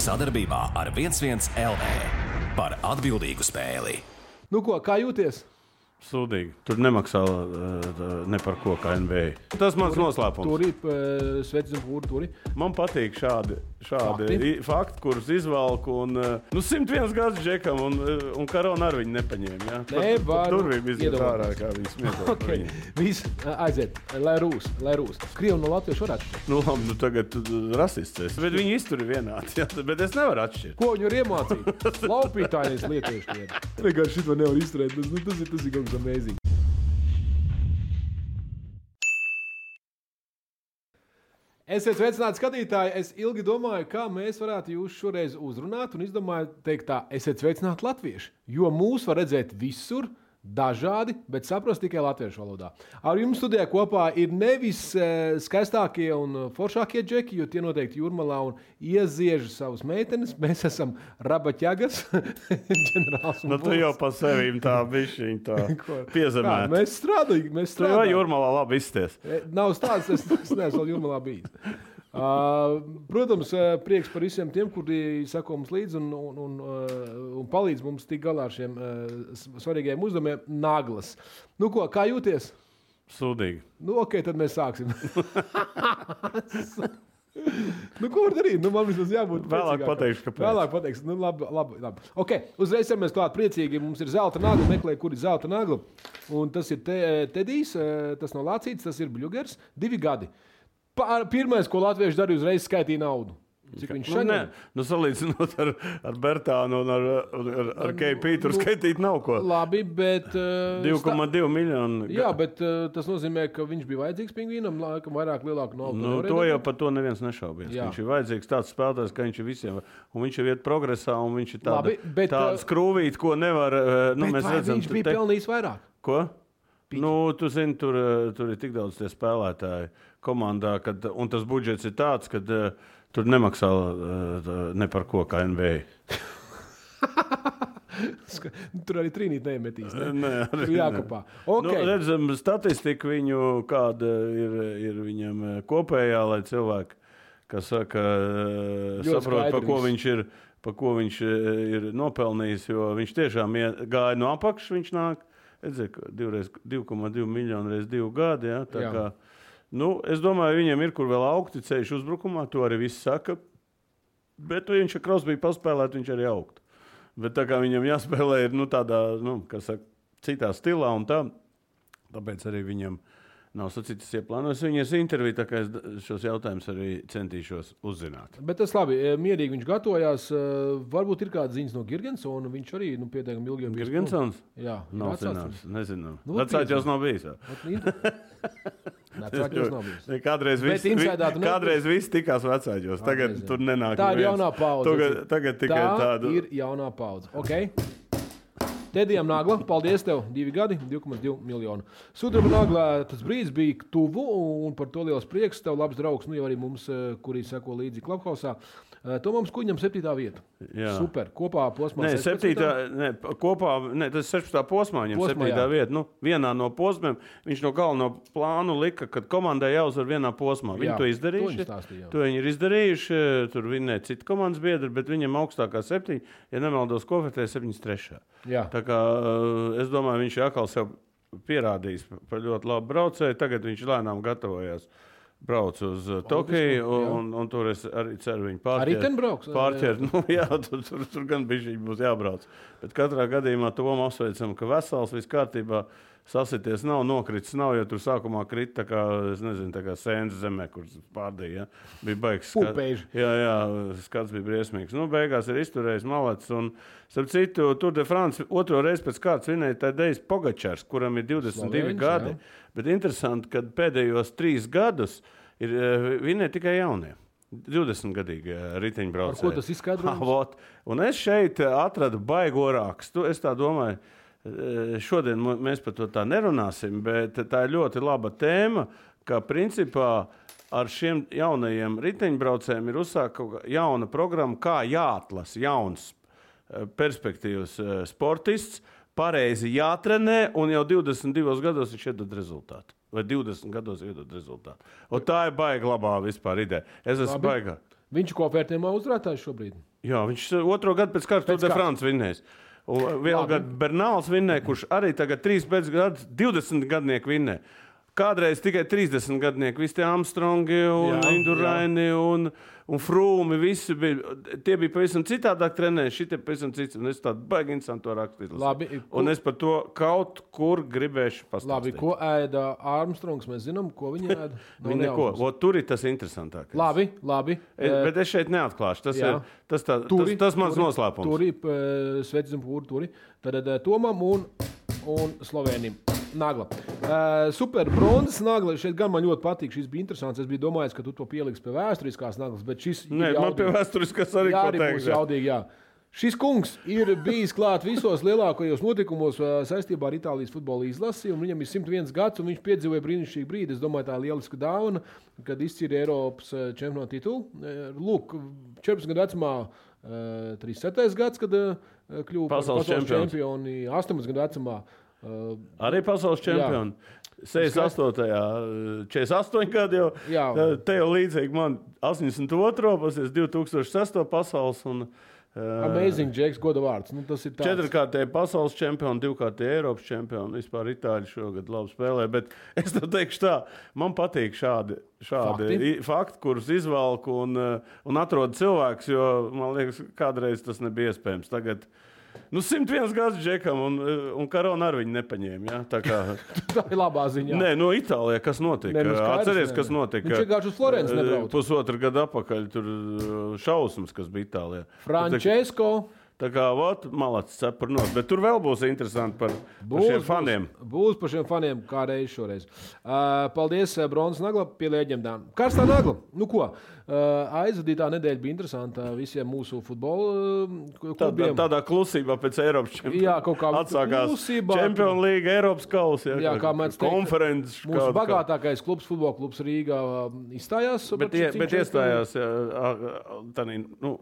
Sadarbībā ar 11 LV par atbildīgu spēli. Nu ko, kā jūties? Sūdīgi. Tur nemaksā ne par ko kā NBA. Tas mans noslēpums. Turi, sveicis un pūri, turi. Man patīk šādi fakti, kurus izvalku. 101 gads džekam un Karona ar viņu nepaņēma. Ja? Tur bija iziet ārā, kā viņi smieklīgi. Okay. Viss aiziet, lai rūs. Krievi no latviešu varētu šķirt. Labi, tagad rasists. Bet viņi izturi vienādi. Ja? Bet es nevaru atšķirt. Ko viņi var iemācīt? Laupītājs lietieši lieta. Vienkārši šito nevar izturēt. Tas ir kaut kas amazing. Esiet sveicināti skatītāji. Es ilgi domāju, kā mēs varētu jūs šoreiz uzrunāt un izdomāju teikt tā, esiet sveicināti latvieši, jo mūs var redzēt visur, dažādi, bet saprast tikai latviešu valodā. Ar jums studijā kopā ir nevis skaistākie un foršākie džeki, jo tie noteikti Jūrmalā un ieziež savus meitenes. Mēs esam rabaķagas, ģenerāls un tu jau pa sevīm tā bišķiņ tā piezemēt. Mēs strādājam. Tu jau Jūrmalā labi izties. Nav stāsts, es neesmu vēl Jūrmalā bijis. Protams, prieks par visiem tiem, kuri sako mums līdzi un palīdz mums tikt galā ar šiem svarīgajiem uzdevumiem. Naglas. Nu ko, kā jūties? Sūdīgi. Nu, ok, tad mēs sāksim. Nu, ko var darīt? Nu, man vismaz jābūt vēlāk pateikšu, kāpēc. Vēlāk pateikšu. Nu, labi. Ok, uzreiz mēs klāt priecīgi. Mums ir zelta nagla, meklē, kur ir zelta nagla. Un tas ir Tedijs, tas nav lācīts, tas ir Bļugers. 2 gadi. Pirmais, ko latvieši darīja, uzreiz skaitīja naudu. Cik viņš šodien? Salīdzinot ar Bertānu un ar KP, tur skaitīt nav ko. Labi, bet... 2,2 miljonu. Jā, bet tas nozīmē, ka viņš bija vajadzīgs pingvīnam, laikam vairāk lielāku naudu. To jau par to neviens nešaubies. Viņš ir vajadzīgs tāds spēlētājs, ka viņš ir visiem. Un viņš ir iet progresā, un viņš ir tāda skrūvīt, ko nevar... Bet vai viņš bija pelnījis vairāk? Ko? Tu zini, tur ir tik daudz tie spēlētāji komandā, un tas budžets ir tāds, ka tur nemaksā ne par ko kā NBA. Tur arī trīnīt neiemetīs, ne? Nē, tur jākopā. Okay. Redzam, statistika viņu, kāda ir viņam kopējā, lai cilvēki, kas saka, saprot, pa ko viņš ir nopelnījis, jo viņš tiešām gāja no apakšas, viņš nāk. Redzēju, 2,2 miljonu reiz 2 gadi. Ja? Kā, es domāju, viņiem ir kur vēl augti ceļš uzbrukumā, to arī viss saka. Bet viņš ar Krosbiju paspēlēt, viņš arī augtu. Bet tā kā viņam jāspēlē ir tādā, citā stilā un tā, tāpēc arī viņam nav sacītas ieplānojas viņas interviju, tā kā es šos jautājumus arī centīšos uzzināt. Bet tas labi, mierīgi viņš gatavojās. Varbūt ir kāda ziņas no Girgensona, viņš arī pietiekami ilgi. Girgensons? Jā. Nav zināms, nezinām. Vecāķos nav bijis. Vecāķos nav bijis. Kādreiz viss tikās vecāķos, tagad tur nenāk. Tā ir jaunā paudze. Tagad tikai tāda. Tā ir jaunā paudze. Ok. Tedijam nagla, paldies tev, 2 gadi, 2,2 miljonu. Sudraba naglā tas brīdis bija tuvu, un par to liels prieks. Tev labs draugs, jau arī mums, kuri seko līdzi Clubhouse. Tomams Kuņam 7. vieta. Jā. Super, kopā posmā. Tas ir 16. posmā, viņam 7. vieta. Vienā no posmiem viņš no galveno plānu lika, kad komandai jāuzvar vienā posmā. Viņi to izdarījuši. To viņi ir izdarījuši, tur vinnē citi komandas biedri, bet viņam augstākā 7, ja nemaldos, Kofetē 73. Jā. Tā kā es domāju, viņš ir atkal sev pierādījis par ļoti labu braucēju. Tagad viņš lēnām gatavojās. Brauc uz Tokiju, un tur es arī ceru viņu pārķert. Arī ten brauks? Pārķert. Tur gan bišķiņ būs jābrauc. Bet katrā gadījumā Tomu apsveicam, ka vesels, viss kārtībā, sasities nav, nokritis nav, jo tur sākumā krita tā kā, es nezinu, tā kā sēnes zemē, kur pārdīja. Ja? Bija baigs. Jā, skats bija briesmīgs. Beigās ir izturējis malets, un starp citu, Tour de France 2. reizi pēc kārtas vinēja Tadejs Pogačars, kuram ir 22 gadi. Jā. Bet interesanti, ka pēdējos 3 gadus ir vinēja tikai jaunie. 20-gadīgi riteņbraucēji. Ar ko tas izskaidrojums? Un es šeit atradu baigo rakstu. Es tā domāju, šodien mēs par to tā nerunāsim, bet tā ir ļoti laba tēma, ka principā ar šiem jaunajiem riteņbraucējiem ir uzsākta jauna programma, kā jāatlasa jauns perspektīvas sportists, pareizi jātrenē, un jau 22 gados viņš iedod rezultātu. Vai 20 gados iedod rezultātu. Un tā ir baiga labā vispār ideja. Es esmu baigā. Viņš ir kopvērtējumā uzvarētājs šobrīd. Jā, viņš 2. gadu pēc kārtas Tour de France vinnējis. Un vēl gadu Bernāls vinnēja, kurš arī tagad 3 pēc gadu 20 gadnieku vinnē. Kādreiz tikai 30 gadnieki, visi tie Armstrongi un Induraini un Frūmi, visi bija, tie bija pavisam citādāk trenēji, šitie pavisam cits, un es tādu baigi interesantu to rakstīt. Labi, un es par to kaut kur gribēšu pastāstīt. Labi, ko ēda Armstrongs, mēs zinām, ko viņi ēda? Viņi neko, tur ir tas interesantākais. Labi. Bet es šeit neatklāšu, tas mans noslēpums. Turi, sveicam pūri, turi, tad Tomam un Slovēnim. Nagla. Super bronzas nagla. Šeit gan man ļoti patīk. Šis bija interesants. Es biju domājis, ka tu to pieliksi pie vēsturiskās naglas, bet šis Nē, man pie vēsturiskās arī ko teikt. Jaudīgi, jā. Šis kungs ir bijis klāt visos lielākajos notikumos saistībā ar Itālijas futbola izlasi, un viņam ir 101 gads, un viņš piedzīvoja brīnišķīgu brīdi. Es domāju, tā ir lieliska dāvana, kad izcīra Eiropas čempionu titulu. Lūk, 14 gadu vecumā, 37. gads, kad kļuva pasaules čempioni, 18 gadu vecumā. Arī pasaules čempioni. 68. 48 gadi jau. Te jau līdzīgi man 82. pasies 2006. pasaules un Amazing Jacks, goda vārds. Nu, tas ir tāds. 4-kārtēji pasaules čempioni, 2-kārtēji Eiropas čempioni. Vispār Itāļi šogad labi spēlē, bet es tev teikšu tā, man patīk šādi fakti, kurus izvalku un atrod cilvēks, jo man liekas, kādreiz tas nebija iespējams. Tagad 101 gads Džekam un Karona ar viņu nepaņēma. Ja? Tā ir labā ziņā. Nē, Itālijā kas notika? Atceries, kas notika? Viņš vienkārši uz Florenci nebrauc. Pusotru gadu atpakaļ tur šausmas, kas bija Itālijā. Francesco. Tā kā, malacis cepur nos. Bet tur vēl būs interesanti par šiem faniem. Būs par šiem faniem kādreiz šoreiz. Paldies, bronzas nagla pie leģendām. Karstā nagla. Nu ko? Aizvadītā nedēļa bija interesanta visiem mūsu futbola klubiem. Tādā klusībā pēc Eiropas čempionāta. Jā, kaut kā atsākās Čempionu līga, Eiropas kausa. Jā, kā mēs teikt, konferences. Mūsu bagātākais klubs, futbola klubs Rīgā izstājās. Bet iestājās,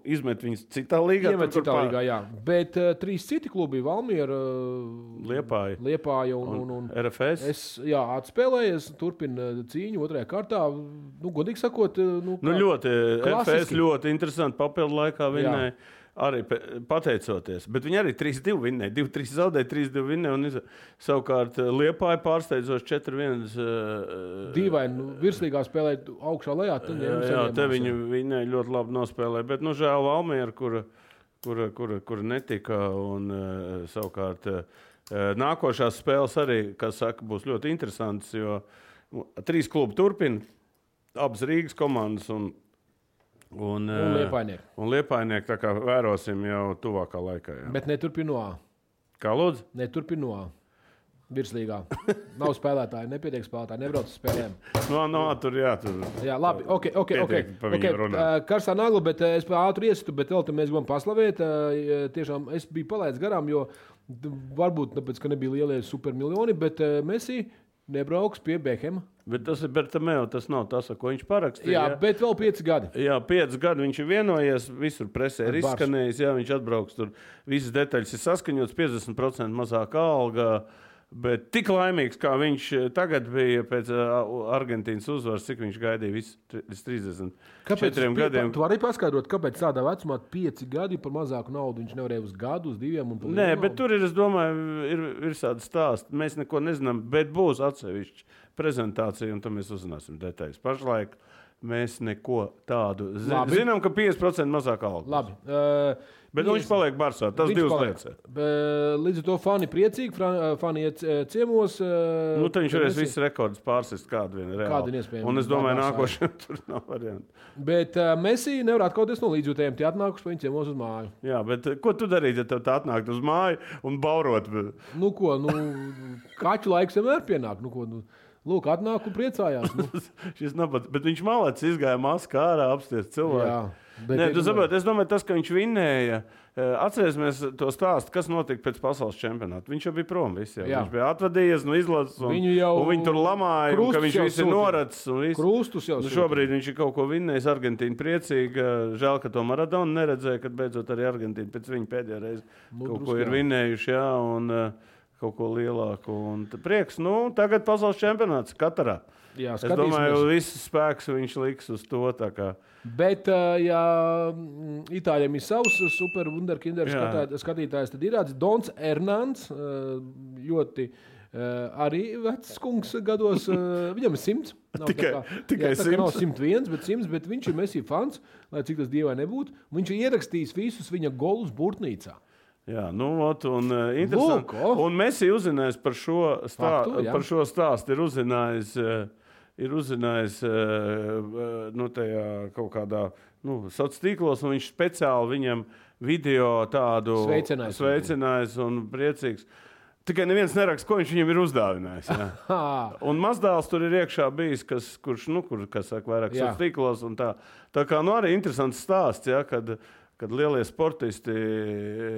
izmet viņus citā līgā. Iemet citā līgā, jā. Bet 3 citi klubi, Valmiera, Liepāja un RFS. Atspēlējies, turpina cīņu 2. kārtā. Godīgi sakot, FS ļoti interesanti papildu laikā vinnēja, arī pateicoties. Bet viņi arī 3-2 vinnēja, 2-3 zaudēja, 3-2 vinnēja. Savukārt Liepāja pārsteidzoši 4-1. Dīvaini, virslīgā spēlēja augšā lejā. Jā, te viņi vinnēja ļoti labi nospēlēja. Bet, žēl Valmiera, kura netika. Un savukārt nākošās spēles arī, kas saka, būs ļoti interesantas, jo 3 klubi turpina. Abas Rīgas komandas un Liepainieki. Un Liepainieki, tā kā vērosim jau tuvākā laikā. Jā. Bet neturpino A. Kā lūdzu? Neturpino A. Virslīgā. Nav spēlētāji, nepietiek spēlētāji, nebrauc uz spēlēm. Tur. Jā, labi, ok. Karstā nagla, bet es ātri iesitu, bet vēl te mēs gribam paslavēt. Tiešām es biju palaidis garām, jo varbūt tāpēc, ka nebija lielie supermiljoni, bet Messi nebrauks pie Bekhema. Bet tas ir Bertameo, tas nav tas, ko viņš parakstīja. Jā, bet vēl 5 gadi. Jā, 5 gadi viņš ir vienojies, visur presē ir izskanējis, viņš atbrauks tur. Visas detaļas ir saskaņotas, 50% mazāka alga, bet tik laimīgs, kā viņš tagad bija pēc Argentīnas uzvaras, cik viņš gaidīja līdz 34 gadiem. Tu vari paskaidrot, kāpēc tādā vecumā 5 gadi par mazāku naudu viņš nevarēja uz gadu, uz 2 un par Nē, bet tur ir, es domāju, ir tāda stāsta. Mēs neko nezinām, bet būs atsevišķi prezentācija, un tam mēs uzzināsim detaļas. Pašlaik mēs neko tādu zinām, ka 50% mazāk alga. Labi. Bet viņš paliek Barsā, tas 2 lietas. Līdz ar to fani priecīgi, fani iet ciemos. Tad viņš varēs visus rekordus pārsist kādu vienu reāli. Un es domāju, nākošajam tur nav variantu. Bet Messi nevar atkauties no līdzjūtējiem, tie atnākuši pa viņu ciemos uz māju. Jā, bet ko tu darītu, ja tev tā atnākt uz māju un baurot? Kaķu laiks vienmēr pienāk. Lūk, atnāk un priecājās. Šis nabats, bet viņš malācis izgāja maskā ārā apstiest cilvēku. Jā, Nē, tu saproti, es domāju, tas, ka viņš vinnēja, atcerēsimies to stāstu, kas notika pēc pasaules čempionāta. Viņš jau bija prom visi. Viņš bija atvadījies no izlases, un viņi tur lamāja, un ka viņš visi noracis. Krustus jau šobrīd viņš ir kaut ko vinnējis, Argentīna priecīga. Žēl, ka to Maradona neredzēja, kad beidzot arī Argentīna pēc viņa pēdējā reize kaut ko ir vinnējuši. Jā, un kaut ko lielāku. Un prieks, tagad pasaules čempionāts Katarā. Jā, es domāju, viss spēks viņš liks uz to. Bet, ja Itāļiem ir savs super wunderkinder skatītājs, tad ir Dons Hernans, ļoti arī vecs kungs gados. Viņam ir 100. Tikai 100. Nav 101, bet 100, bet viņš ir Messi fans, lai cik tas dievai nebūtu. Viņš ir ierakstījis visus viņa golus Burtnīcā. Jā, interesanti. Un Messi uzzinājis par šo stāstu, ir uzzinājis tajā kaut kādā sociālos tīklos, un viņš speciāli viņam video tādu sveicinājis un priecīgs. Tikai neviens neraksta, ko viņš viņam ir uzdāvinājis. Un mazdēls tur ir iekšā bijis, kurš saka, vairāk sociālos tīklos. Tā kā arī interesants stāsts, kad lielie sportisti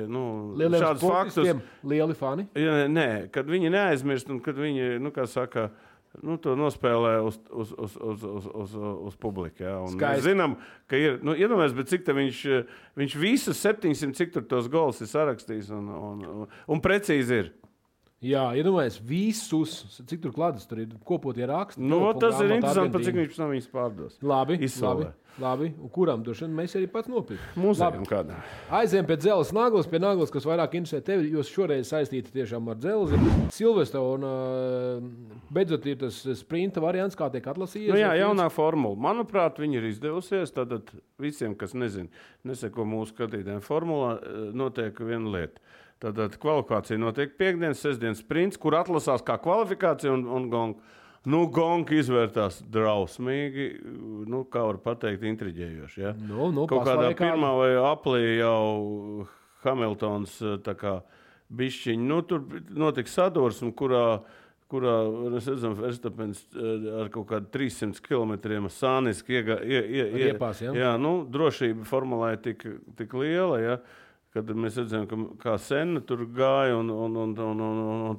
šādus faktus... Lieli fani? Nē, kad viņi neaizmirst un kad viņi, to nospēlē uz publiku. Ja? Mēs zinām, ka ir, iedomājies, bet cik viņš visus 700, cik tur tos gols ir sarakstījis un precīzi ir. Jā, iedomājies, visus, cik tur klātas, tur ir kopotie raksti. Tas ir interesanti, pat cik viņš pēc tam viņus pārdos. Labi. Un kuram droši vien mēs arī pats nopirkt? Mūzējam kādā. Aizējam pie dzelzs naglas, kas vairāk interesē tevi, jo šoreiz saistīta tiešām ar dzelzi. Silvestra un beidzot ir tas sprinta variants, kā tiek atlasījies. Jaunā formula. Manuprāt, viņi ir izdevusies. Tad visiem, kas neseko mūsu skatītājiem formulā, notiek viena lieta. Tātad kvalifikācija notiek piekdienas, sestdienas sprints, kur atlasās kā kvalifikācija un gong. Gong izvērtās drausmīgi, kā var pateikt, intriģējoši. Ja? Kaut kādā pirmā vai aplī jau Hamiltons bišķiņ. Tur notika sadursme, kurā mēs redzam, Verstapens ar kaut kādu 300 km sāniski iepās. Drošība formulē tik liela, ja? Kad mēs redzam, kā Senna tur gāja un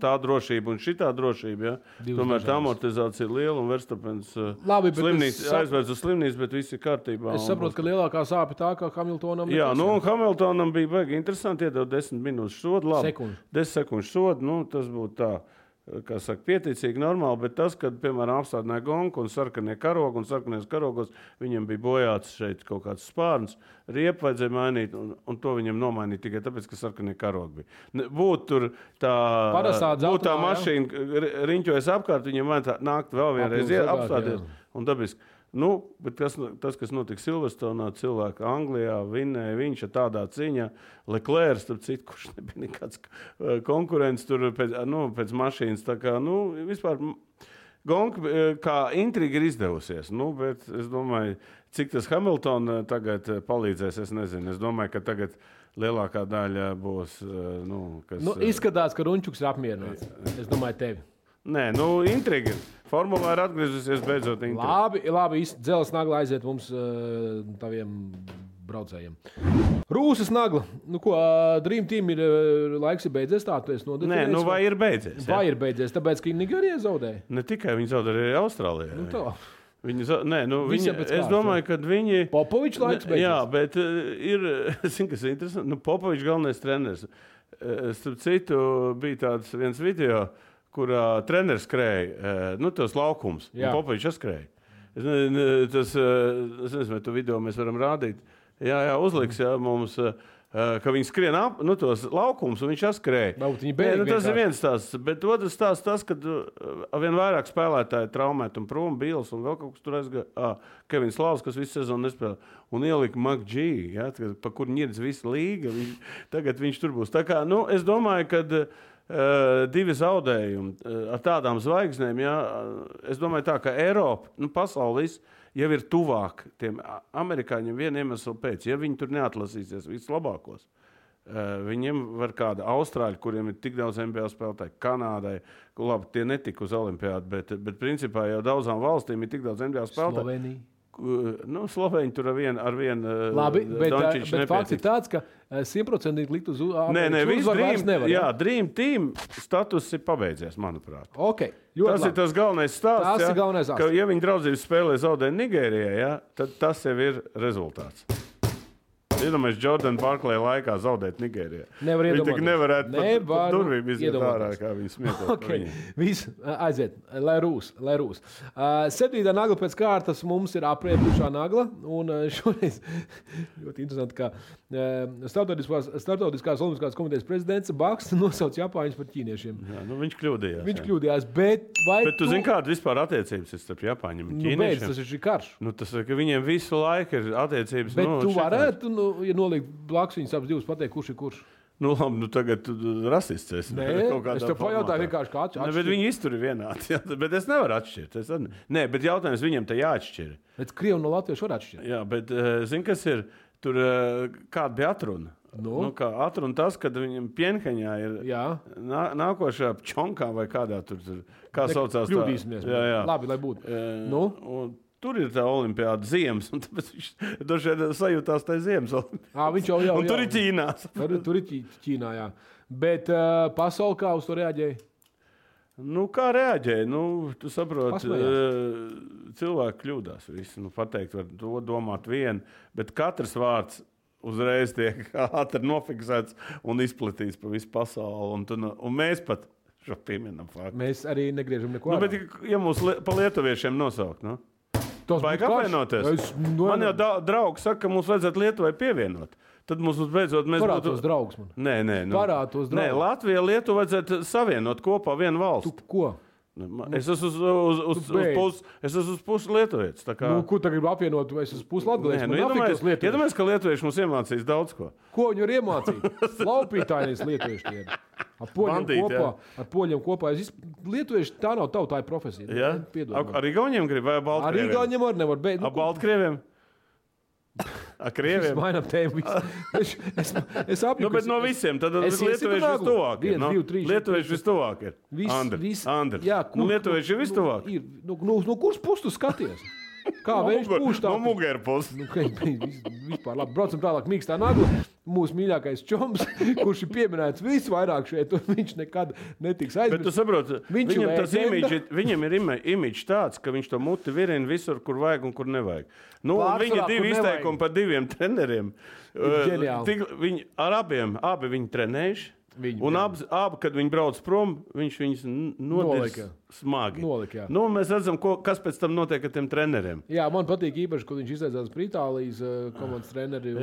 tā drošība un šitā drošība. Ja? Tomēr tā amortizācija ir liela un Verstapens aizvērts uz slimnīcu, bet viss ir kārtībā. Es saprotu, ka lielākā sāpe tā, ka Hamiltonam... Jā, un Hamiltonam bija baigi interesanti iedot 10 minūtes sodu. 10 sekundžu sodu, tas būtu tā. Kā saka, pieticīgi, normāli, bet tas, kad, piemēram, apstādināja gonku un sarkanie karogi, un sarkanies karogos viņam bija bojāts šeit kaut kāds spārns, riepu vajadzēja mainīt, un to viņam nomainīt tikai tāpēc, ka sarkanie karogi bija. Būtu tā mašīna riņķojas apkārt, viņam vajadzētu nākt vēl vienreiz apstāties, un dabiski. Bet tas, kas notika Silverstone, cilvēki Anglijā vinnēja viņš ar tādā cīņā. Leclerc, starp citu, kurš nebija nekāds konkurents tur pēc mašīnas. Tā kā, vispār gonka kā intriga ir izdevusies. Bet es domāju, cik tas Hamilton tagad palīdzēs, es nezinu. Es domāju, ka tagad lielākā daļa būs, kas... Izskatās, ka Runčuks ir apmierināts. Es domāju, tevi. Nē, intriga. Formulā ir atgriezusies beidzot intriga. Labi, dzelzs nagla aiziet mums taviem braucējiem. Rūsas nagla. Dream Team ir laiks ir beidzies, tā tu esi nodefinējis? Nē, vai ir beidzies? Vai ir beidzies, tāpēc, ka Nigērija zaudēja? Ne tikai viņi zaudēja, arī Austrālijā. Es domāju, ka viņi... Popovičs laiks beidzies? Jā, bet ir, kas ir interesanti, Popovičs galvenais treneris. Starp citu, bija tāds viens video, kurā treneris skrēja, tos laukums, un Popovičs skrēja. Es nezinu, vai tu video mēs varam rādīt. Jā, uzliks, mums, ka viņi skrien ap, tos laukums, un viņš skrēja. Tas ir viens stāsts, bet otrs stāsts tas, kad vien vairāk spēlētāji traumēt un prom, Bīls un vēl kaut kas tur aizgāja. Kevins Lavs, kas visu sezonu nespēlē, un ielika McG, pa kur ņirdz visa līga. Tagad viņš tur būs. Tā kā, es domāju, kad divi zaudējumi ar tādām zvaigznēm, es domāju tā, ka Eiropa, pasaules jau ir tuvāk tiem amerikāņiem vienu iemeslu pēc. Ja viņi tur neatlasīsies vislabākos, viņiem var kāda Austrāļa, kuriem ir tik daudz NBA spēlētāji, Kanādai, labi, tie netika uz olimpiādu, bet principā jau daudzām valstīm ir tik daudz NBA spēlētāji. Slovenija. Slovēņi tur ar vienu Labi, bet fakts ir tāds, ka 100% likt uz uzvaru nevar. Jā, Dream Team status ir pabeidzies, manuprāt. Okay, tas ir tas galvenais stāsts, ka ja viņi draudzības spēlē zaudē Nigērijā, tad tas jau ir rezultāts. Iedomājies, Jordan Barkley laikā zaudēt Nigērijā. Viņš tik nevarētu pat durvīm iziet ārā, kā viņi smietos. Okay. Viss, aiziet, lai rūs. 7. nagla pēc kārtas mums ir apriepušā nagla, un šoreiz ļoti interesanti, ka Startautiskās olimpiskās komitejas prezidents Baksts nosauc Japāņus par ķīniešiem. Jā, viņš kļūdījās. Viņš kļūdījās, bet tu zini, kāda vispār attiecības ir starp Japāņiem un ķīniešiem? Tas ir šī karš. Tas ir, ka viņiem visu laiku ir attiecības. Bet tu varētu, ja nolikt blakus viņus abas divas, pateikt, kurš ir kurš? Labi, tagad rasists esi. Nē, es tev pajautāju vienkārši, kā atšķirt. Bet viņi iztur ir vienādi, bet es nevaru atšķirt. Nē, bet jautājums viņam te jāatšķir. Bet Krievi no Latviešu var atšķirt. Jā, bet zini, kas ir? Tur kāda bija atruna? Kā atruna tas, kad viņam Pjenheņā ir nākošā Pčonkā vai kādā tur, kā saucās tā? Kļūdīsimies. Jā. Labi, lai būtu. Tur ir tā olimpiāda ziemas, un tāpēc viņš dažreiz sajūtās tā ziemas olimpiāda. Viņš jau. Un tur ir Ķīnā. Tur ir Ķīnā, jā. Bet pasauli kā uz to reaģēja? Kā reaģēja? Tu saproti, cilvēki kļūdās. Visi, pateikt, var to domāt vienu, bet katrs vārds uzreiz tiek ātri nofiksēts un izplatīts pa visu pasauli. Un mēs pat šo pieminam faktu. Mēs arī negriežam neko. Bet, ja mūs pa lietuviešiem nosaukt, vajag apvienoties. Man jau draugi saka, ka mums vajadzētu Lietuvai pievienot. Tad mums beidzot parātos draugus man. Nē. Parātos draugus. Nē, Latvija Lietuva vajadzētu savienot kopā vienu valstu. Tu ko? Es esmu uz pusi lietuvietis. Ko tagad grib apvienot? Es esmu pusi latgalietis. Iedomājies, ka lietuvieši mums iemācīs daudz ko. Ko viņi var iemācīt? Laupītājies lietuvieši tie. Ar poļiem kopā. Lietuvieši tā nav tautāja profesija. Ja? Ar Igauniem grib vai Baltkrieviem? Ar Igauniem var nevar. Ar Baltkrieviem? Ar Krieviem? Es mainām tēmu. Es apjuku. Bet no visiem. Tad lietuvieši vistuvāk ir. Lietuvieši vistuvāk ir. Andri. Jā, lietuvieši ir vistuvāk. No kuras puses tu skaties? Kā viņš pūš tā? No mugera puses. Vispār labi. Braucam tālāk mīkstā nagla. Mūsu mīļākais čoms, kurš ir pieminēts visvairāk šeit, un viņš nekad netiks aizmirsts. Bet tu saproti, viņam ir imidžs tāds, ka viņš to muti virina visur, kur vajag un kur nevajag. Viņa divi izteikumi par diviem treneriem. Abi viņi trenējuši. Un abi, kad viņi brauc prom, viņš viņus nolika smagi. Mēs redzam, kas pēc tam notiek ar tiem treneriem. Jā, man patīk īpaši, kad viņš izteicās par Itālijas komandas treneri.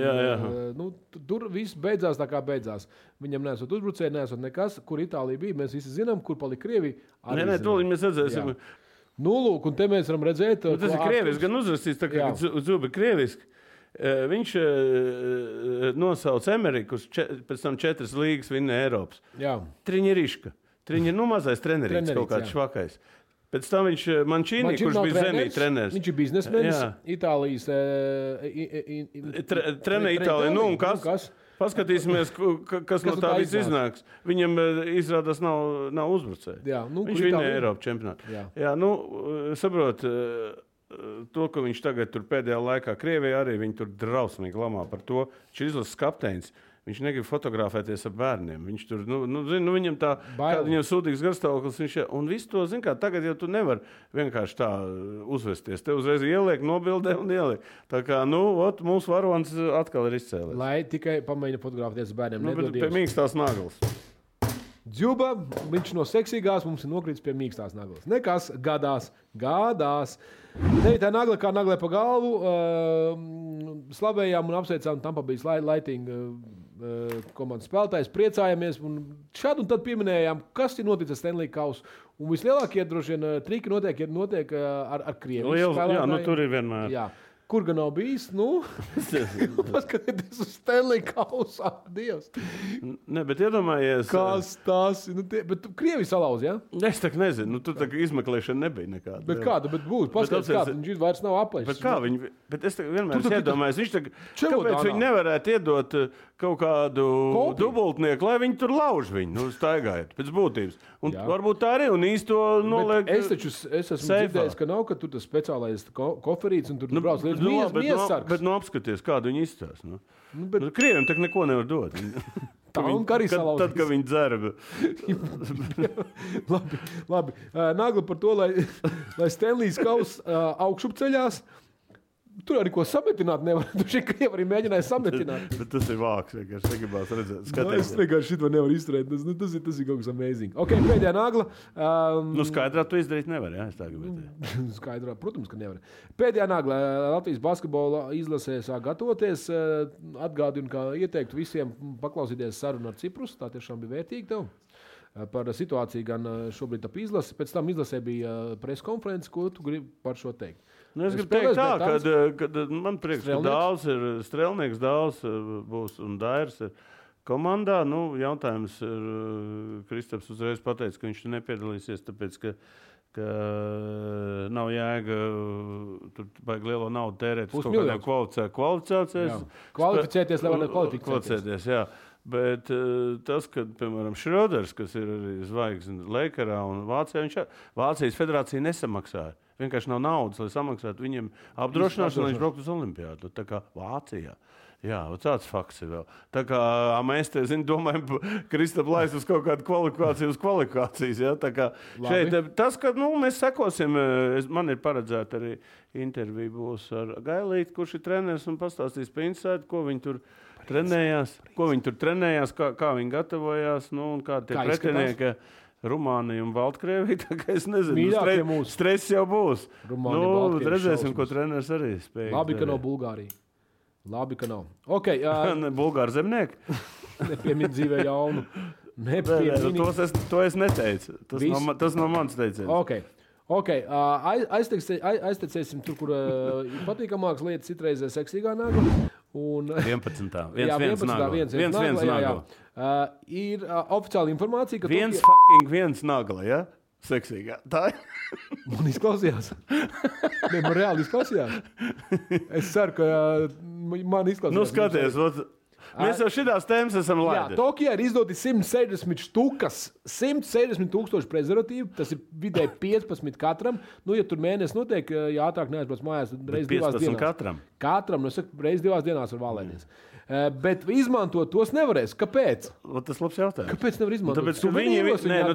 Tur viss beidzās tā kā beidzās. Viņam nesot uzbrucēji, nesot nekas. Kur Itālija bija, mēs visi zinām, kur palika Krievija. Nē, to mēs redzēsim. Lūk, un te mēs varam redzēt. Tas ir krieviski, gan uzrakstīts, tā kā Zubi krieviski. Viņš nosauca Amerikas, pēc tam 4 līgas vinna Eiropas. Triņeriška. Mazais trenerīts, kaut kāds švakais. Pēc tam viņš Mancini, kurš bija Zenī treneris. Viņš ir biznesmenis, Itālijas trenē Itāliju. Un kas? Paskatīsimies, kas no tā viss iznāks. Viņam izrādās nav uzbrucēji. Viņš vinna Eiropas čempionātu. Saprot, to, ka viņš tagad tur pēdējā laikā Krievijā arī viņi tur drausmīgi lamā par to. Viņš ir izlases kapteinis. Viņš negrib fotografēties ar bērniem. Viņš tur, viņam tā, viņam sūdīgs garstāvoklis. Un visu to, zin kā, tagad jau tu nevar vienkārši tā uzvesties. Te uzreiz ieliek, nobildē un ieliek. Tā kā, mūsu varonis atkal ir izcēlies. Lai tikai pamēģina fotografēties ar bērniem. Bet pie mīkstās naglas. Džuba, viņš no seksīgās mums ir nokrītis pie mīkstās naglas. Nekas, gadās. 9. nagla kā naglē pa galvu. Slavējām un apsveicām Tampa Bay Lightning komandas spēlētājs. Priecājamies un šādu un tad pieminējām, kas ir noticis Stanley Kausa. Un vislielākie droši vien triki notiek ar Krievijas spēlētājiem. Jā, tur ir vienmēr. Jā. Kur gan nav bijis? Paskatieties uz Stanley Kausa. Dievs. Ne, bet iedomājies. Kas tas? Bet Krievi salauz, jā? Es tak nezinu. Tur tā izmeklēšana nebija nekāda. Bet kāda? Bet būtu. Paskatieties, kāda. Viņš vairs nav aplēšs. Bet kā viņi? Bet es vienmēr iedomājos. Kāpēc viņi nevarētu iedot kaut kādu dubultnieku, lai viņi tur lauž viņu, staigājot pēc būtības. Un varbūt tā arī un īsto noliek. Es esmu dzirdējis, ka nav, ka tur tas speciālais koferīts un tur brauc līdz miesargs. Bet apskaties, kādu viņi izstāst. Krieviem tak neko nevar dot. Tad, kad viņi dzerba. Labi. Nagla par to, lai Stanleys Kauss augšup ceļās. Tur arī ko sametināt nevar. Tu šeit Krievi arī mēģināja sametināt. Bet tas ir vāks, vienkārši negribās redzēt. Es vienkārši šito nevaru izturēt. Tas ir kaut kas amazing. Ok, pēdējā nagla. Skaidrā tu izdarīt nevar, jā? Es tā gribētu. Skaidrā, protams, ka nevar. Pēdējā nagla. Latvijas basketbola izlasē sāk gatavoties. Atgādinu, ka ieteiktu visiem paklausīties sarunu ar Ciprus. Tā tiešām bija vērtīgi tev. Par situāciju gan šobrīd ap izlasi. Pēc tam izlasē bija preskonferences, ko tu gribi par šo teikt. Nu, es gribu teikt tā, ka man prieks, ka Dāls ir strelnieks, Dāls būs un Dairs ir komandā. Nu, jautājums ir, Kristaps uzreiz pateica, ka viņš nepiedalīsies, tāpēc, ka nav jēga tur baigi lielo naudu tērēt. Uz kaut kādiem kvalificēties, lai varētu kvalificēties. Jā. Bet tas, ka, piemēram, Šroders, kas ir arī zvaigzne Lakerā un Vācijā, Vācijas federācija nesamaksāja. Vienkārši nav naudas, lai samaksātu viņiem apdrošināšanu, lai viņš brauktu uz Olimpiādu. Tā kā Vācijā. Jā, tāds fakts ir vēl. Tā kā mēs te, domājam, Kristap lais uz kaut kādu kvalifikācijas. Ja? Tā kā šeit, tas, ka mēs sekosim, man ir paredzēta arī intervija būs ar Gailīti, kurš ir treneris un pastāstīs pa insaidu, ko viņi tur trenējās, kā viņi gatavojās, un kādi tie pretinieki Rumānija un Baltkrievija. Tā kā es nezinu, stress jau būs. Redzēsim, ko treneris arī spēj. Labi, ka nav Bulgārija. Labi, ka nav. Okay, Bulgāri zemnieki? Nepiemīt dzīvē jaunu. To es neteicu. Tas nav mans teiciens. Okay. Aiztecēsim tur, kur patīkamākas lietas, citreizē seksīgā nagla. 11. Viens nagla. Ir oficiāla informācija, ka viens nagla, ja? Seksīgā. Tā ir. Man izklausījās. Man reāli izklausījās. Es ceru, ka man izklausījās. Nu, skaties, mēs jau šitās tēmas esam laidi. Jā, Tokijā ir izdoti 160 štukas, 160 tūkstoši prezervatīvu, tas ir vidēji 15 katram. Nu, ja tur mēnesis notiek, ja ātrāk neaizbrauc mājās, tad reiz 2 dienās. Katram? Katram, reiz 2 dienās var valēties. Bet izmantot tos nevarēs. Kāpēc? Tas labs jautājums. Kāpēc nevar izmantot?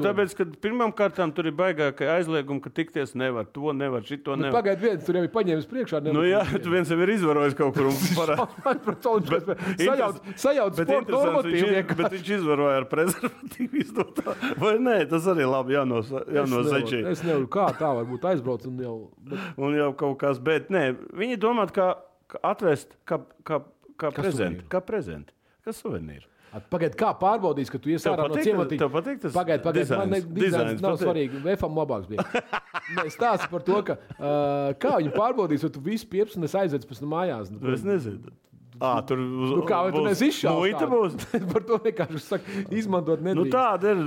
Tāpēc, ka pirmām kārtām tur ir baigākai aizliegumi, ka tikties nevar, to nevar, šito nevar. Pagaid viens, tur jau ir paņēmis priekšā. Tu viens jau ir izvarojis kaut kur un sajauc sporta normatīvu. Bet viņš izvaroja ar prezervatīvu izdotā. Vai nē, tas arī labi jānozačī. Es nevaru, kā tā varbūt aizbrauc un jau... Un jau kaut kas, bet nē, viņi domāt, kā atvest, kā prezenti, kā suvenīri. Pagaid, kā pārbaudīs, ka tu ies ārā no ciematīņa? Tev patīk tas? Pagaid, man dizains nav svarīgi. VFam labāks bija. Stāsti par to, ka kā viņi pārbaudīs, vai tu visu piepsi un es aizvedz pēc mājās. Es nezinu. Tur kā vai tu nes izšaukt? Būs. Par to vienkārši saka, izmantot nedrīkst. Tāda ir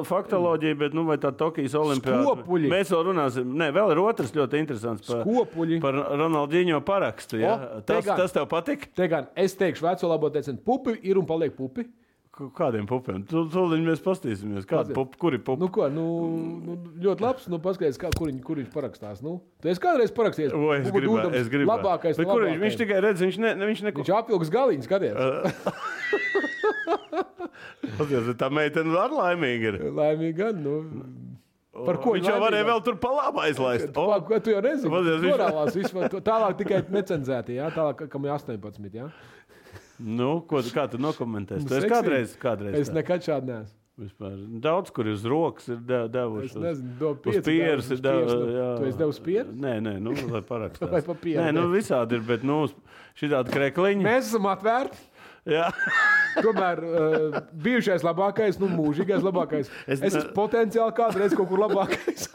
faktoloģija, bet vai tā Tokijas olimpiāda. Skopuļi. Mēs vēl runāsim. Nē, vēl ir otrs ļoti interesants par Ronaldinho parakstu. Ja? Tas tev patik? Te gan, es teikšu veco labo teicienu, pupi ir un paliek pupi. Kādiem pupiem? Tūlīt mēs pastīsimies. Kuri pupi? Ļoti labs. Paskaties, kur viņš parakstās. Tu esi kādreiz parakstījies? Es gribu. Labākais. Viņš tikai redz, viņš apvilks galiņas, skaties. Tā meitene ar laimīgi ir. Laimīgi gan, Par ko viņš jau varēja vēl tur pa labu aizlaist. Tu jau nezini. Morālās vispār. Tālāk tikai necenzēti, jā? Tālāk, kam ir 18, jā? Kā tu nokomentēsi? Tu esi kādreiz? Es nekad šādi neesmu. Vispār. Daudz, kur uz rokas ir devuši. Es nezinu, uz pieres ir devuši. Tu esi devusi pieres? Nē, lai parakstās. Vai pa pieres? Nē, visādi ir, bet šitādi krekliņi. Mēs esam atvērti. Jā. Tomēr bijušais labākais, mūžīgais labākais. Es esmu potenciāli kādreiz kaut kur labākais.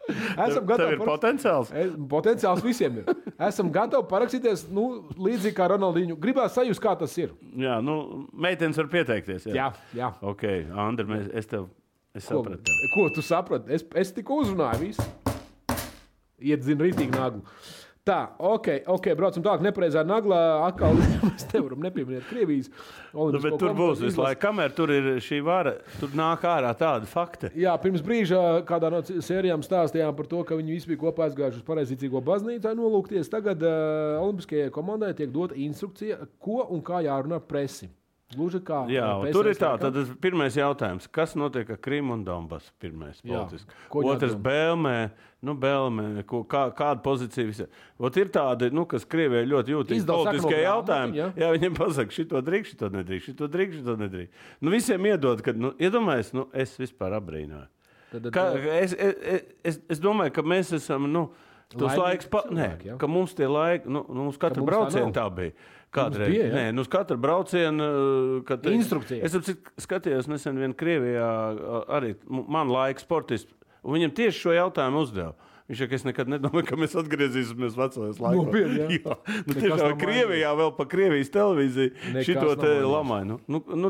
Esam gatavi. Tev ir potenciāls? Potenciāls visiem ir. Esam gatavi parakstīties, līdzīgi kā Ronaldinho. Gribās sajust, kā tas ir. Jā, meitenes var pieteikties. Jā. Ok, Andri, es sapratu. Ko tu saprati? Es tikko uzrunāju visu. Iedzinu rītīgi naglu. Tā, ok, braucam tālāk. Nepareizā naglā atkal mēs nevaram nepieminēt Krievijas. Bet tur būs visu laiku. Kamēr tur ir šī vara, tur nāk ārā tādi fakti. Jā, pirms brīža kādā no sērijām stāstījām par to, ka viņi visi bija kopā aizgājuši uz pareizticīgo baznīcu nolūkties. Tagad Olimpiskajai komandai tiek dota instrukcija, ko un kā jārunā presi. Gluži kā tur ir tā, tad pirmais jautājums. Kas notiek ar Krimu un Donbasu? Pirmais politiski. Otrs Belmē, kāda pozīcija visā. Ir tādi, kas Krievijai ļoti jūtīgi politiskie jautājumi. Jā, viņiem pasaka, šito drīkst, šito nedrīkst. Visiem iedod, kad, iedomājies, es vispār abrīnoju. Es domāju, ka mēs esam, tos laiks, ka mums tie laiki, mums katru braucienu tā bija. Kādreiz. Nē, uz katru braucienu. Instrukcija. Es skatījos nesen vien Krievijā arī man laika sportists, un viņam tieši šo jautājumu uzdeva. Viņš saka, es nekad nedomāju, ka mēs atgriezīsimies vecajos laikos. Tiešām Krievijā vēl pa Krievijas televīziju šito te lamāju.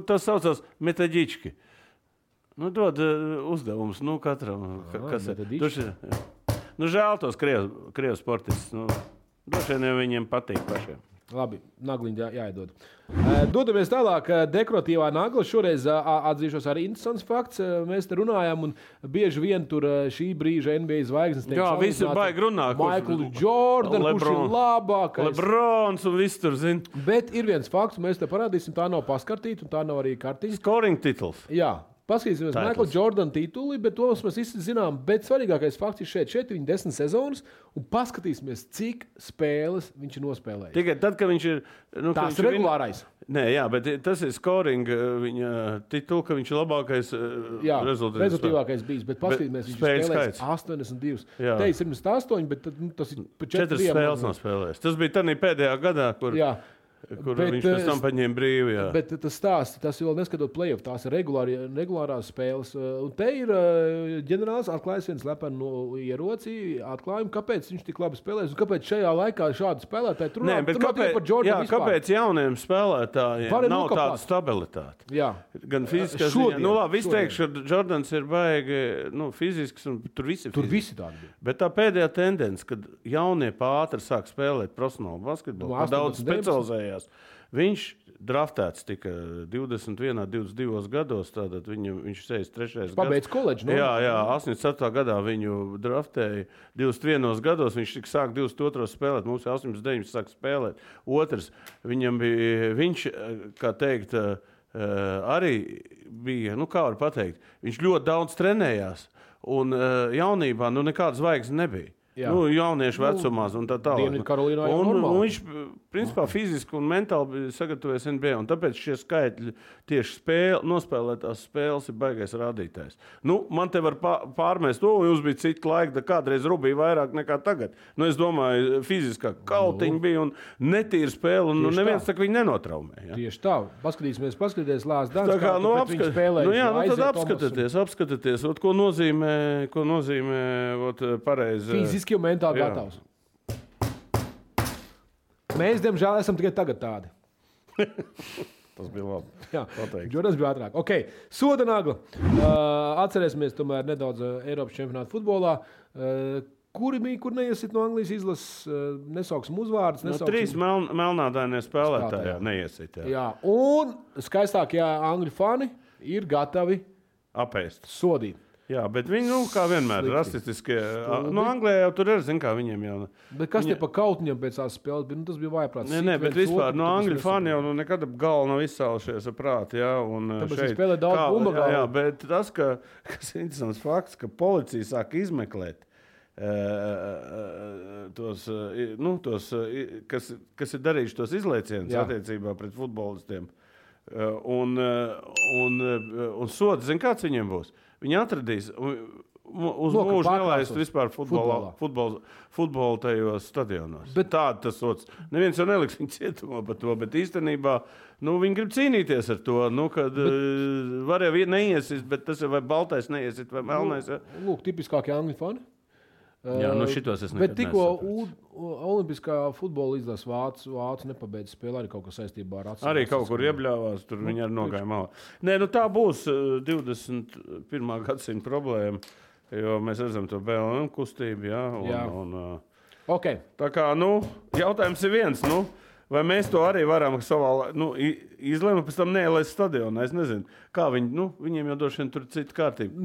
Tas saucās metaģički. Dod uzdevums, katram. Kas ir? Žēl tos Krievu sportistus. Droši vien viņiem patīk pašiem. Labi, nagliņi jāiedod. Dodamies tālāk. Dekoratīvā nagla. Šoreiz atzīšos arī interesants fakts. Mēs te runājam, un bieži vien tur šī brīža NBA zvaigznes tiek salīdzināts. Jā, visi baigi runā. Michael Jordan, kurš ir labākais. Lebrons un viss tur zina. Bet ir viens fakts, mēs te parādīsim, tā nav paskartīta, un tā nav arī kartiņa. Scoring titls. Jā. Paskatīsimies Michael Jordan tituli, bet to mēs visi zinām. Bet svarīgākais fakts ir šeit viņa 10 sezonas, un paskatīsimies, cik spēles viņš ir nospēlējis. Tikai tad, kad viņš ir... Tās ir regulārais. Nē, jā, bet tas ir scoring viņa titulu, ka viņš ir labākais rezultātīvākais bijis. Bet paskatīsimies, viņš ir spēlējis 82. Te ir 78, bet tas ir pa 4 spēles nav spēlējis. Tas bija tādā pēdējā gadā, kur... Jā. Kur viņš pēc tam paņēma brīvi. Jā. Bet tas stāsts, tas vēl neskatot play-off, tās ir regulārās spēles. Un te ir ģenerālis atklājis viens lepenu ieroci, atklājumu, kāpēc viņš tik labi spēlēs un kāpēc šajā laikā šādi spēlētāji tur nav par Jordanu vispār. Kāpēc jauniem spēlētājiem nav tāda stabilitāte? Jā. Gan fiziskā ziņā. Labi, es teikšu, ka Jordans ir baigi fizisks un tur visi tādi bija. Bet tā pēdējā tendence, kad jaunie pātri sāk spēlēt profesionālu basketbolu, daudz specializējās. Viņš draftēts tika 21, 22 gados, tātad viņš 63. gads. Pabeidz koledžu, Jā, 87. gadā viņu draftēja 21 gados, viņš tika sāk 22 spēlēt, mums 89 sāk spēlēt. Otrs, viņam bija, viņš, kā teikt, arī bija, kā var pateikt, viņš ļoti daudz trenējās, un jaunībā, nekādas zvaigznes nebija. Jauniešu vecumā un tā tālāk. Un viņš, principā, fiziski un mentāli sagatavojas NBA, un tāpēc šie skaitļi tieši nospēlētās spēles ir baigais rādītājs. Man te var pārmest to, un jūs bija citi laiki, kādreiz rubīja vairāk nekā tagad. Es domāju, fiziskā kautiņa bija un netīra spēle, un neviens tā, ka viņi nenotraumē. Ja? Tieši tā. Paskatīsimies Lās Dans, kā viņš spēlēja. Tad apskatieties, ko nozīmē pareizi. Fiziski un mentāli gatavs. Mēs, diemžēl, esam tikai tagad tādi. Tas bija labi. Jā, Jordans bija ātrāk. Okay. Soda nagla. Atcerēsimies tomēr nedaudz Eiropas čempionātu futbolā. Kur neiesit no Anglijas izlases, nesauksim uzvārdus. 3 melnādainie spēlētāji neiesit. Jā, un skaistākie angļu fani ir gatavi apēst. Sodīt. Jā, bet viņi, kā vienmēr, rasistiskie. Anglijā jau tur ir, kā viņiem jau. Bet kas te pa kautņiem pēc tās spēles bija? Tas bija vajagprāts. Nē, bet vispār angļu fani jau nekad galva nav izsaušies ar prāti, jā. Tāpēc viņi spēlē daudz bumba galva. Jā, bet tas, kas ir interesants fakts, ka policija sāk izmeklēt kas ir darījuši tos izlaicienus attiecībā pret futbolistiem. Un sods, zin, kāds viņiem būs? Viņi atradīs uz mūžu nelaist vispār futbolu tajos stadionos. Bet tāda tas sots. Neviens jau neliks viņu cietumā par to, bet īstenībā viņi grib cīnīties ar to, kad var jau neiesist, bet tas ir vai baltais neiesist, vai melnais. Lūk, tipiskākie angļu fani. Jā, šitos es nekad bet tikko olimpiskā futbola izlases vācu nepabeidz spēlē arī kaut kas saistībā ar atsaucības. Arī kaut kur iebļāvās, tur viņi arī nogāja malā. Nē, tā būs 21. gadsimta problēma, jo mēs redzam to BLM kustību, jā. Okay. Tā kā, jautājums ir viens, Vai mēs to arī varam savā izlēma pēc tam neielaist stadionā? Es nezinu, kā viņi, viņiem jau droši vien tur cita kārtība.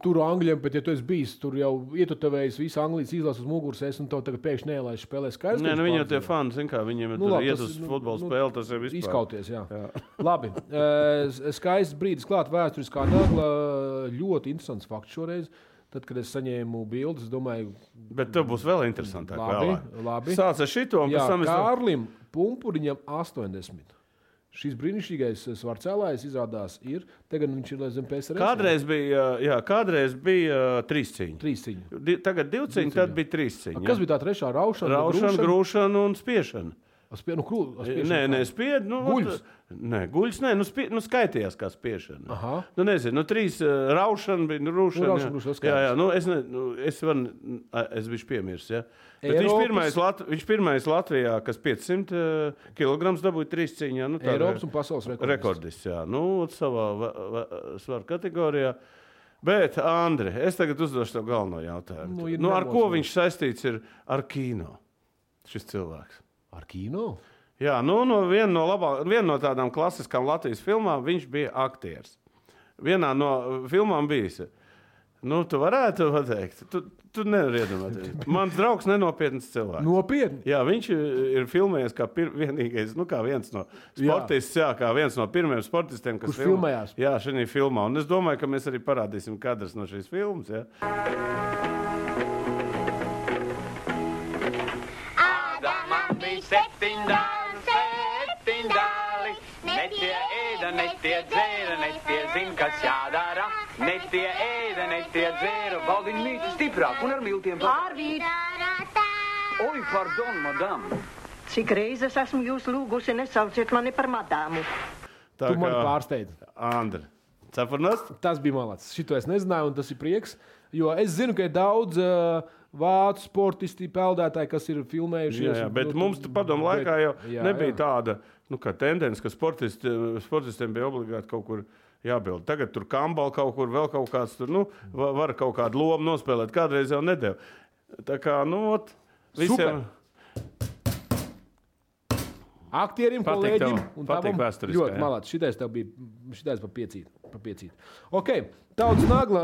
Tur Angļiem, bet ja tu esi bijis, tur jau ietutvējis visu Anglijas izlases uz muguras, un tev tagad pēkšņi neielaist spēlē skaidrs. Nē, viņi jau tie fani, zin kā, viņiem ir tur iet uz futbola spēli, tas ir vispār. Izkauties, jā. Labi, skaists brīdis klāt vēsturiskā nagla, ļoti interesants fakts šoreiz. Tad, kad es saņēmu bildes, es domāju... Bet tev būs vēl interesantāk. Labi. Sāc ar šito, un pēc tam es... Kārlim Pumpuriņam 80. Šis brīnišķīgais svarcēlājs izrādās ir... Tagad viņš ir zem PSRS. Kādreiz bija 3 cīņi. 3 cīņi. Tagad 2 cīņi, tad bija 3 cīņi. Kas bija tā trešā? Raušana, grūšana un spiešana. Nē, spied. Guļus? Nē, guļus, nē, skaitījās kā spiešana. Nezinu, 3 raušana bija, rūšana. Es biju piemirst, ja. Bet viņš pirmais Latvijā, kas 500 kilograms dabūja 3 cīņā. Eiropas un pasaules rekordists, jā. Savā svaru kategorijā. Bet, Andri, es tagad uzdošu tev galveno jautājumu. Ar ko viņš saistīts ir ar kino? Šis cilvēks. Ar kino? Jā, viena no tādām klasiskām Latvijas filmām viņš bija aktieris. Vienā no filmām bijis. Tu varētu pateikt. Tu nevari iedomāties. Mans draugs nenopietns cilvēks. Nopietni? Jā, viņš ir filmējies kā vienīgais, kā viens no sportists, kā viens no pirmiem sportistiem, kas filmējās. Jā, šajā filmā. Un es domāju, ka mēs arī parādīsim kadrus no šīs filmas, jā. Netie dzēra, netie zin, kas jādara. Netie ēda, netie dzēra. Valdiņ mīti stiprāk un ar miltiem pārvīt. Oi, pardon, madam. Cik reizes esmu jūs lūgusi, nesauciet mani par madāmu. Tu mani pārsteidz. Andri, cepurnas? Tas bija malacis. Šito es nezināju, un tas ir prieks. Jo es zinu, ka ir daudz vācu sportisti, peldētāji, kas ir filmējušies. Jā, bet mums padomu laikā jau nebija tāda... kā tendence, ka sportistiem bija obligāti kaut kur jābild. Tagad tur kambal kaut kur, vēl kaut kāds tur, var kaut kādu lomu nospēlēt. Kādreiz jau nedēļ. Tā kā, visiem... Aktierim, kolēģim un patīk vēsturiskā. Ļoti malāts. Šitais pa piecīt. Ok, tautas nagla.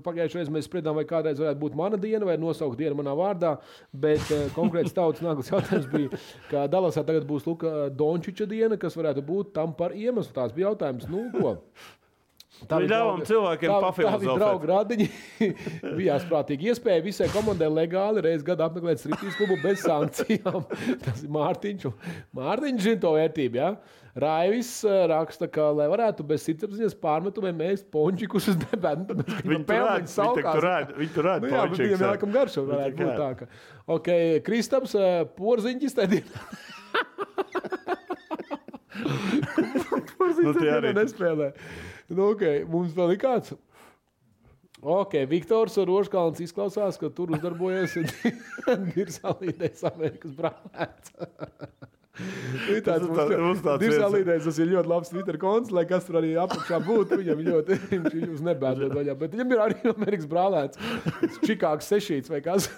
Pagājušajā reizē mēs spriedām, vai kādreiz varētu būt mana diena vai nosaukt dienu manā vārdā, bet konkrēts tautas naglas jautājums bija, ka Dalasā tagad būs Luka Dončiča diena, kas varētu būt tam par iemeslu. Tās bija jautājums, ko? Ļāvām cilvēkiem pafilozofēt. Tā bija draugu radiņi. Bijās prātīgi iespēja visai komandai legāli reiz gadu apmeklēt striptīz klubu bez sankcijām. Tas ir Mārtiņš. Mārtiņš zina to vērtību, jā. Raivis raksta, ka, lai varētu bez sirdsapziņas pārmetumiem ēst pončikus uz debētu. Viņi tur rāda pončikus. Jā, bet viņam jākam garšo varētu būt tā. Ka. Ok, Kristaps, porziņķis tā dienā. Porziņķis tā dienā nespēlē. Okay, mums vēl ir kāds. Ok, Viktors Roškalns izklausās, ka tur uzdarbojas Dirsalīdēs Amerikas brālēts. Dirsalīdēs, tas ir ļoti labs Twitter konts, lai kas tur arī apakšā būtu, viņam ļoti, viņš uz nebēdot vaļā, bet viņam ir arī Amerikas brālēts. Čikāgs sešīts vai kas.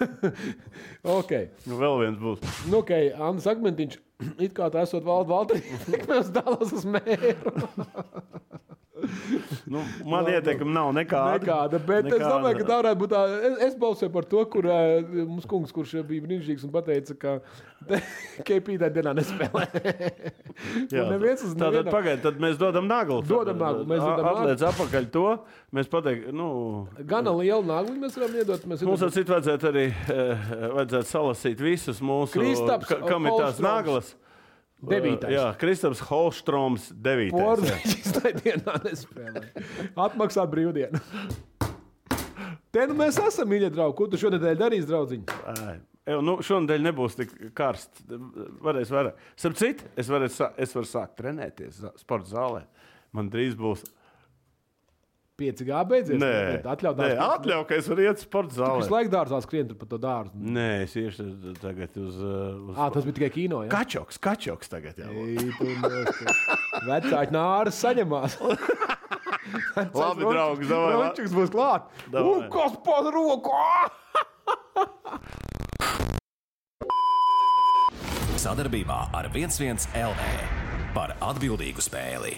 Ok. Vēl viens būs. Ok, Andris Akmentiņš, it kā tā esot Valteri, mēs dalās uz mēru. Man ieteikumi nav nekāda. Bet es domāju, ka tā varētu būt tā. Es balsoju par to, kur mums kungs, kurš bija brīnišķīgs un pateica, ka KP tā dienā nespēlē. Tātad pagaid, tad mēs dodam naglu. Atliec apakaļ to. Mēs pateiktu, Gana lielu naglu mēs varam iedot. Mums vajadzētu arī salasīt visus mūsu, kam ir tās naglas. 9. Jā, Kristaps Holstroms 9. Porziņķis tā dienā nespēlē. Atmaksāt brīvdienu. Te mēs esam, mīļie draugi. Ko tu šonedēļ darīsi, draudziņi? Šonedēļ nebūs tik karsts. Varēs vairāk. Starp citu, es varu sākt trenēties sporta zālē. Man drīz būs 5G beidzies? Atļauj, ka es varu iet sporta zālē. Tu visu laiku dārzā skrien tur pa to dārzu. Nē, es iešu tagad uz... Tas bija tikai kino, jā? Kačoks tagad, jā. Vecāki nāras saņemās. Labi, draugs, davai. Rončiks būs klāt. Kas pod roku? sadarbībā ar 11 LV par atbildīgu spēli.